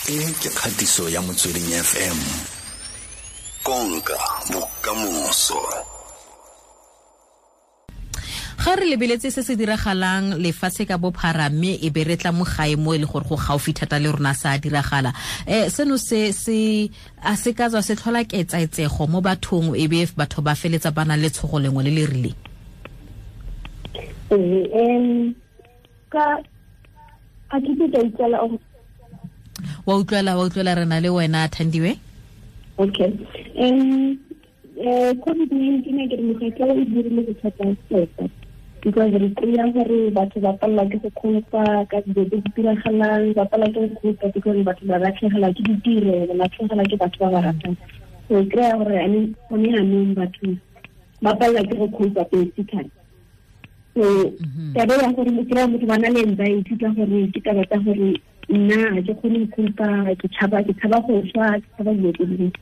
E ke kgatiso ya Motsweding FM. Konka bokamoso. Ga re lebeletse se se diragalang lefatshe ka bophara, mme e be re tla mo gae mo e le gore go gaufi thata le rona sa diragala, seno se se a se ka tswa se tlhola ketsaetsego mo bathong, e be batho ba feletsa ba na le tshogo lengwe le le rileng? Ka a ke ka utlwela? Wa utlwela, wa utlwela, re na le wena, Thandiwe. Okay, COVID-19 ke re mogetla o dirile bothata tota, because re kry-a gore batho ba palelwa ke go copa ka dilo tse di diragalang, ba palelwa ke go copa because batho ba latlhegelwa ke ditiro, ba latlhegelwa ke batho ba ba ratang. So kry-a gore gone yanong batho ba palelwa ke go copa basically. So taba ya gore o kry-a motho ba na le anxiety ka gore ke taba tsa gore nna ga ke kgone go copa, ke tshaba go swa, ke tshaba dilo tse dingwe.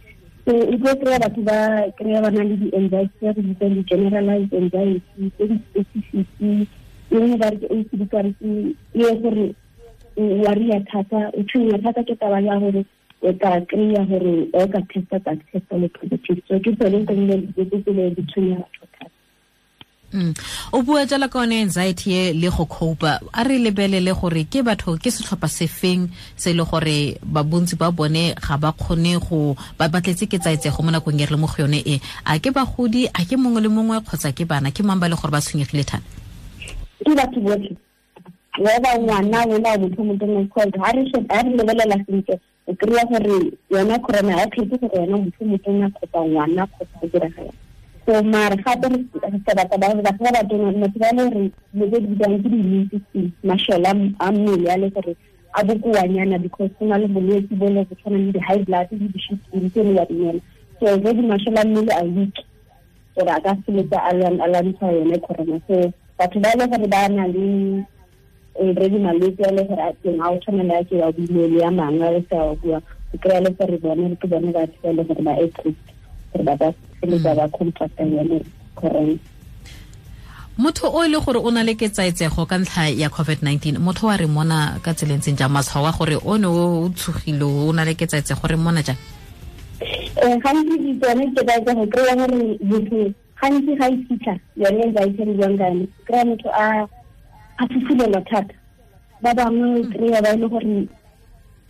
So o tlo kry-a batho ba kry-a ba na le di-anxiety tse re bitsang di-generalized anxiety, tse di-specific. E nngwe ba re ke ACD, kare ke e gore o worry-a thata, o tshwenya thata ke taba ya gore o ka kry-a gore o ka testa, ka testa le positive. So ke tsone tse dilo tse di tshwenya batho thata. O bua jalo ka one anxiety e le go copa. A re lebelele gore ke batho, ke setlhopha sefeng se e le gore ba bontsi ba bone ga ba kgone go ba batletse ke tsaetsego mo nakong e re le mo go yone e. A ke bagodi, a ke mongwe le mongwe, kgotsa ke bana, ke mang ba le gore ba tshwenyegile thata? Ke batho botlhe, whether ngwana, wena o motho motona, because ha re lebelela sentle, o kry-a gore yona corona ga kgethe gore wena motho motona kgotsa ngwana kgotsa go diragala. So mare gape re batla ba batho ba batona, motho ba le gore dilo tse di bitswang ke di-immune system, masole a mmele a le gore a bokoanyana, because go na le bolwetse bo le go tshwana le di-high blood le di-sukiri tse le wa dinela. So already masole a mmele a weak gore a ka feletsa a lwantsha yone corona. So batho ba e le gore ba na le already malwetse a le gore a teng, a o tshwana le a ke wa buile le a mangwe a le sa wa bua, o kry-a le gore bone ke bone batho ba e le gore ba at risk gore ba ka feletsa ba contracta yone corona. Motho o e le gore o na le ketsaetsego ka ntlha ya COVID-19, motho wa re mona ka tseleng tseng jang? Matshwao a gore o ne o tshogile, o na le ketsaetsego, re mona jang? Gantsi tsone ketsaetsego, kry-a gore motho gantsi ga e fitlha yone anxiety re buang ka yone, kry-a motho a fufulelwa thata. Ba bangwe kry-a ba e le gore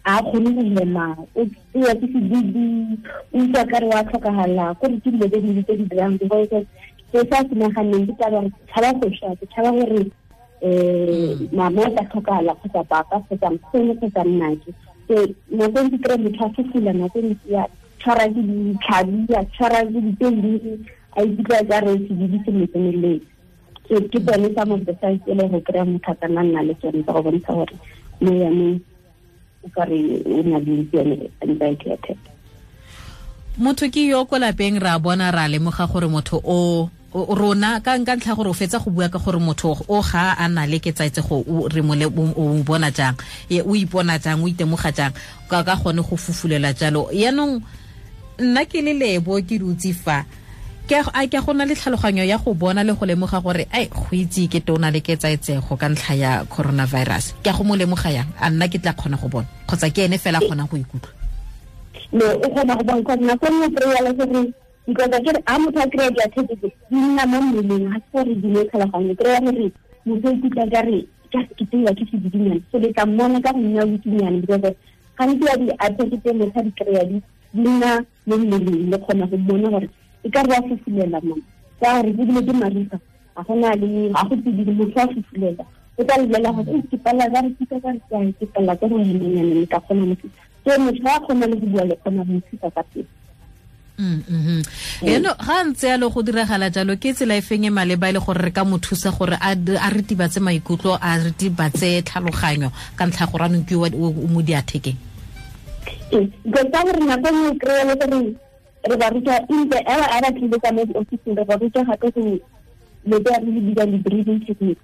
a kgone go hema, o tsewa ke sedidi, o utlwa kare wa tlhokagala, kore ke dilo tse dintsi tse di dirang, because se sa se naganeng ke taba gore ke tshaba go swa, ke tshaba gore mama o tla tlhokagala kgotsa papa kgotsa nkgono kgotsa nnake. So nako ntse kry motho a fufula, nako ntsi ya tshwara ke ditlhabi, a tshwara ke dipeini, a ikutlwa ka re sedidi se mo tseneletse. So ke tsone some of the signs e le go kry-a motho a ka nna nna le tsone tsa go bontsha gore mo yanong o ka re o na le yone anxiety attack. Motho ke yo ko lapeng, ra bona, ra lemoga gore motho o rona ka ntlha gore o fetsa go bua ka gore motho o ga a na le ketsaetsego, re mo o bona jang, o ipona jang, o itemoga jang ka gone go fufulela jalo. Yaanong nna ke le Lebo, ke dutse fa, ke a ke go na le tlhaloganyo ya go bona le go lemoga gore ai, go itse ke te o na le ketsaetsego ka ntlha ya coronavirus, ke a go mo lemoga yang? A nna ke tla kgona go bona, kgotsa ke ene fela a kgonang go ikutlwa? No, o kgona go bona, because nako nngwe kry-a le gore, because a kere a motho a kry-a di-attack di nna mo mmeleng, ga se gore di le tlhaloganyo. Kry-a gore motho o ikutlwa ka re just ke tseiwa ke sedidinyana, so le tla mmona ka go nna weaknyana, because gantsi ya di-attack tse motho a di kry-a di nna mo mmeleng, le kgona go mmona gore e ka re wa fufulela mo ka gore ebile ke mariga, ga gona le ga go tsididi, motho wa fufulela, o tla lebelela gore ke palela ka re ke ka re ke palela ke go hemanyana, le ka kgona mo. So motho ga a kgona le go bua, le kgona go mo ka pele. Eno ga ntse yalo go diragala jalo, ke tsela e feng e maleba e le gore re ka mo thusa gore a ritibatse maikutlo, a ritibatse tlhaloganyo ka ntlha gore anong ke o mo diathekeng? Ee, because ka gore nako nngwe kry-a le gore re ba ruta in the era a ba tlile ka mo di-officing, re ba ruta gape go lo tse re di bitsang di-breathing techniques.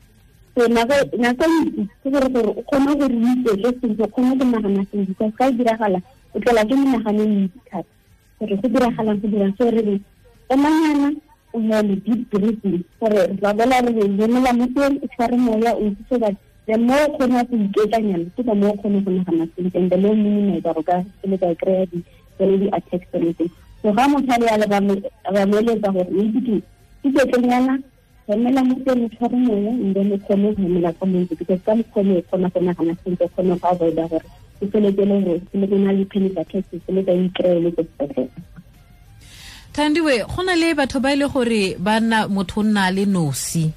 So nako ntsi ke gore o kgone gore o iketle sentle, o kgone go nagana sentle, because ga e diragala o tlelwa ke menagano e mentsi thata gore go diragalang, go dirang. So re re emanyana, o hele, deep breathing, gore ra bola re re lemela mo teng, o tshware moya o itse, so that The more o kgona go iketlanyana ke the more o kgone go nagana sentle, and the more minimize gore ka feletsa o kry-a tsone di-attacks tsone tse. So ga motho a le yalo ba mo eletsa gore o itse ke iketlenyana, hemela mo teng, o tshware moya, and then o kgone go hemela ka montsi, because ka mokgwa o kgona go nagana sentle, o kgone go avoida gore o feletse le gore o feletse o na le panic attacks, o feletse o ikry-e le ko sepetlele. Thandiwe, go na le batho ba ile gore ba nna motho o nna le nosi.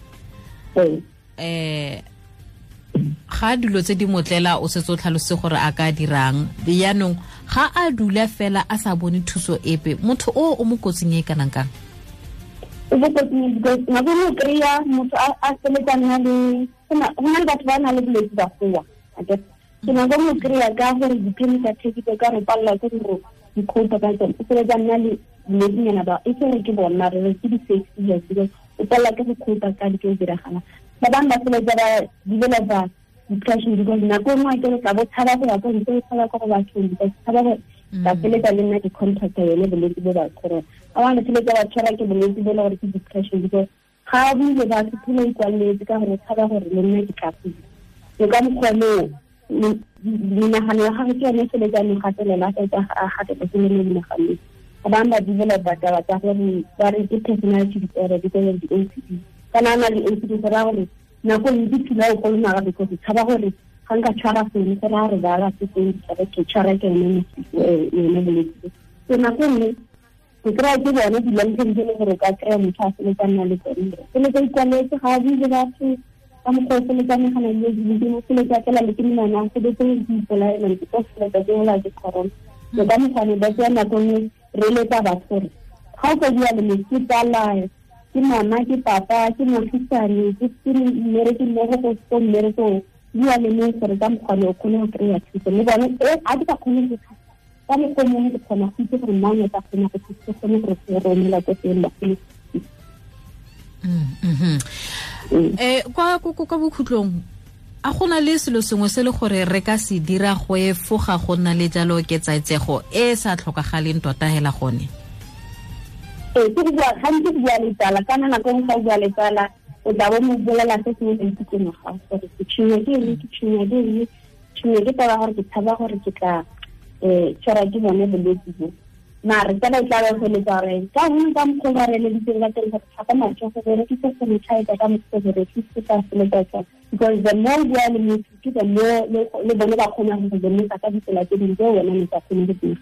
Ga dilo tse di motlela o setse o tlhalose gore a ka dirang, yaanong ga a dula fela a sa bone thuso epe, motho o mo kotsing e kanang kang? O mo kotsing because nako nngwe o kry-a motho a feletsa nna le go na le batho ba na le bolwetse ba goa, so nako nngwe o kry-a ka gore di-panic attack tse ka re palelwa ke gore di-cope ka tsone, o feletsa nna le bolwetsinyana ba e se re ke bona re re ke di-fake seizures because o palelwa ke go cope ka dilo tse diragalang. Ba bangwe ba feletsa ba developa depression because nako nngwe a kere tla bo tshaba go ya ko ntle, o tshaba ko go bathong because tshaba gore ba feletsa le nna ke contracta yone bolwetse bo ba corona. Ba bangwe ba feletsa ba tshwara ke bolwetse bo e le gore ke depression because ga a buile batho phela ikwaletse ka gore tshaba gore le nna ke tla kula. So ka mokgwa moo menagano ya gagwe ke yone e feletsa mo gatelela, a fetsa a gateletse le mo menaganong. Ba bangwe ba developa taba tsa gore ba re ke personality disorder because of the OCD. Kana a na le OCD go raya gore nako ntsi phela o kolomaga because o tshaba gore ga nka tshwara founu go raya gore ba ba setseng ke tshwara ke yone yone bolwetse. So nako nngwe o kry-a ke bone di-long term tse e leng gore o ka kry-a motho a feletsa nna le tsone, feletsa ikwaletse ga a bue le batho ka mokgwa o feletsa nagana le dilo, o feletsa fela le ke menwana, o feletse ke ipolaela ke tlo feletsa ke bola ke corona. So ka mokgwa ne ba tsaya nako nngwe re eletsa batho gore ga o ka bua le motho, ke tsala, ke mama, ke papa, ke moagisane, ke mmereki mmogo ko mmerekong, bua le mongwe gore ka mokgwa ne o kgone go kry-a thuso. Le bone a ke sa kgone go thusa ka mokgwa o mongwe, ke kgona go itse gore mang o tla kgona go thusa, ke kgone gore go romela ko teng ba kgone. Kwa bokhutlong a gona le selo sengwe se le gore re ka se dira go efoga go nna le jalo ketsaetsego e sa tlhokagaleng tota hela gone? Ke go bua gantsi go bua le tsala, kana nako nngwe ga o bua le tsala o tla bo mo bolela se sengwe se itse mo gago gore ke tshwenywa ke eng, ke tshwenywa ke eng, tshwenywa ke taba gore ke tshaba gore ke tla tshwara ke bone bolwetse bo. Mare tsala e tla ba feletsa gore ka gongwe ka mokgwa ba re eleditseng ka teng gore tlhapa matsogo, berekisa sanitizer ka mokgwa berekise ka feletsa tsona. Because the more bua le motho ke the more le bone ba kgona go lemosa ka ditsela tse dingwe tseo wena ne sa kgone go di.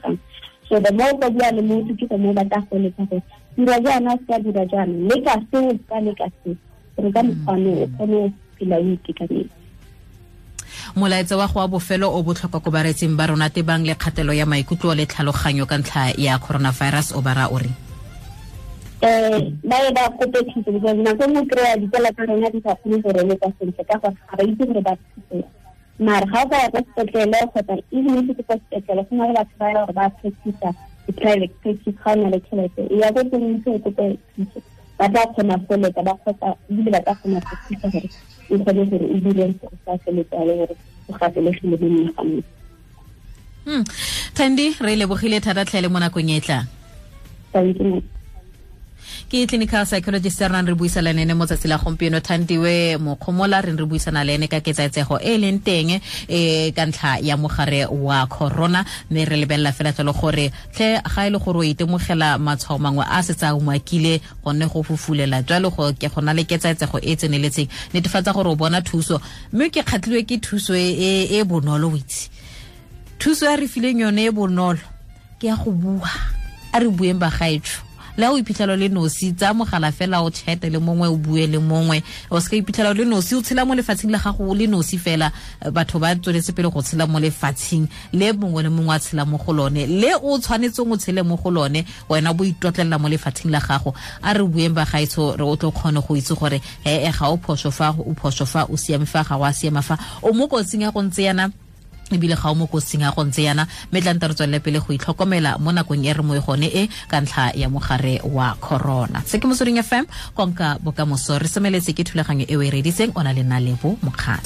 So the more ba bua le motho ke the more ba tla go eletsa gore dira jaana, se ka dira jaana, leka seo, ka leka seo, gore ka mokgwa o kgone go phela o itekanetse. Molaetsa wa go wa bofelo o botlhokwa ko baretsing ba rona tebang le kgatelo ya maikutlo le tlhaloganyo ka ntlha ya coronavirus o bara o re? Ba ye ba kope thuso because nako nngwe kry-a ditsala tsa rona di sa kgone go reletsa sentle ka gore ga ba itse gore ba thuse. Mare ga o ka ya kwa sepetlele kgotsa even if ke kwa sepetlele go na le batho ba gore ba practice di-private practice, ga o na le tšhelete e ya ko teng ntse o kope thuso, ba tla kgona go letsa ba kgotsa ebile ba tla kgona go thusa gore o kgone gore o dire go sa feletsa le gore o gatelegile mo menaganong. Thandi, re lebogile thata tlhe le mo nakong e tlang. Thank you. Ke clinical psychologist re nang re buisana le ene mo tsatsi la gompieno, Thandiwe Mokgomola, re re buisana le ene ka ketsaetsego e leng teng ka ntlha ya mogare wa corona, mme re lebelela fela jalo gore tlhe ga e le gore o itemogela matshwao mangwe a setse a umakile gonne go fufulela jalo go ke gona le ketsaetsego e tseneletseng, netefatsa gore o bona thuso. Mme ke kgatlhilwe ke thuso e bonolo, o itse thuso ya re fileng yone e bonolo ke ya go bua, a re bueng bagaetsho. Le o iphitlhela le nosi, tsa mogala fela o chate le mongwe, o bue le mongwe, o se ka iphitlhela le nosi, o tshela mo lefatsheng la gago le nosi fela. Batho ba tsweletse pele go tshela mo lefatsheng le mongwe le mongwe a tshela mo go lone, le o tshwanetseng o tshele mo go lone, wena bo itotlelela mo lefatsheng la gago. A re bueng bagaetsho, re o tlo kgone go itse gore he ga o phoso fa, o phoso fa, o siame fa, ga o a siama fa, o mo kotsing ya go ntse yana ebile ga o mo kotsing ya go ntse yana. Mme tla nta re tswelele pele go itlhokomela mo nakong e re mo e gone e ka ntlha ya mogare wa corona. Se ke Motsweding FM, konka bokamoso. Re semeletse ke thulaganyo e o e reditseng, o na le nna Lebo Mokgatlho.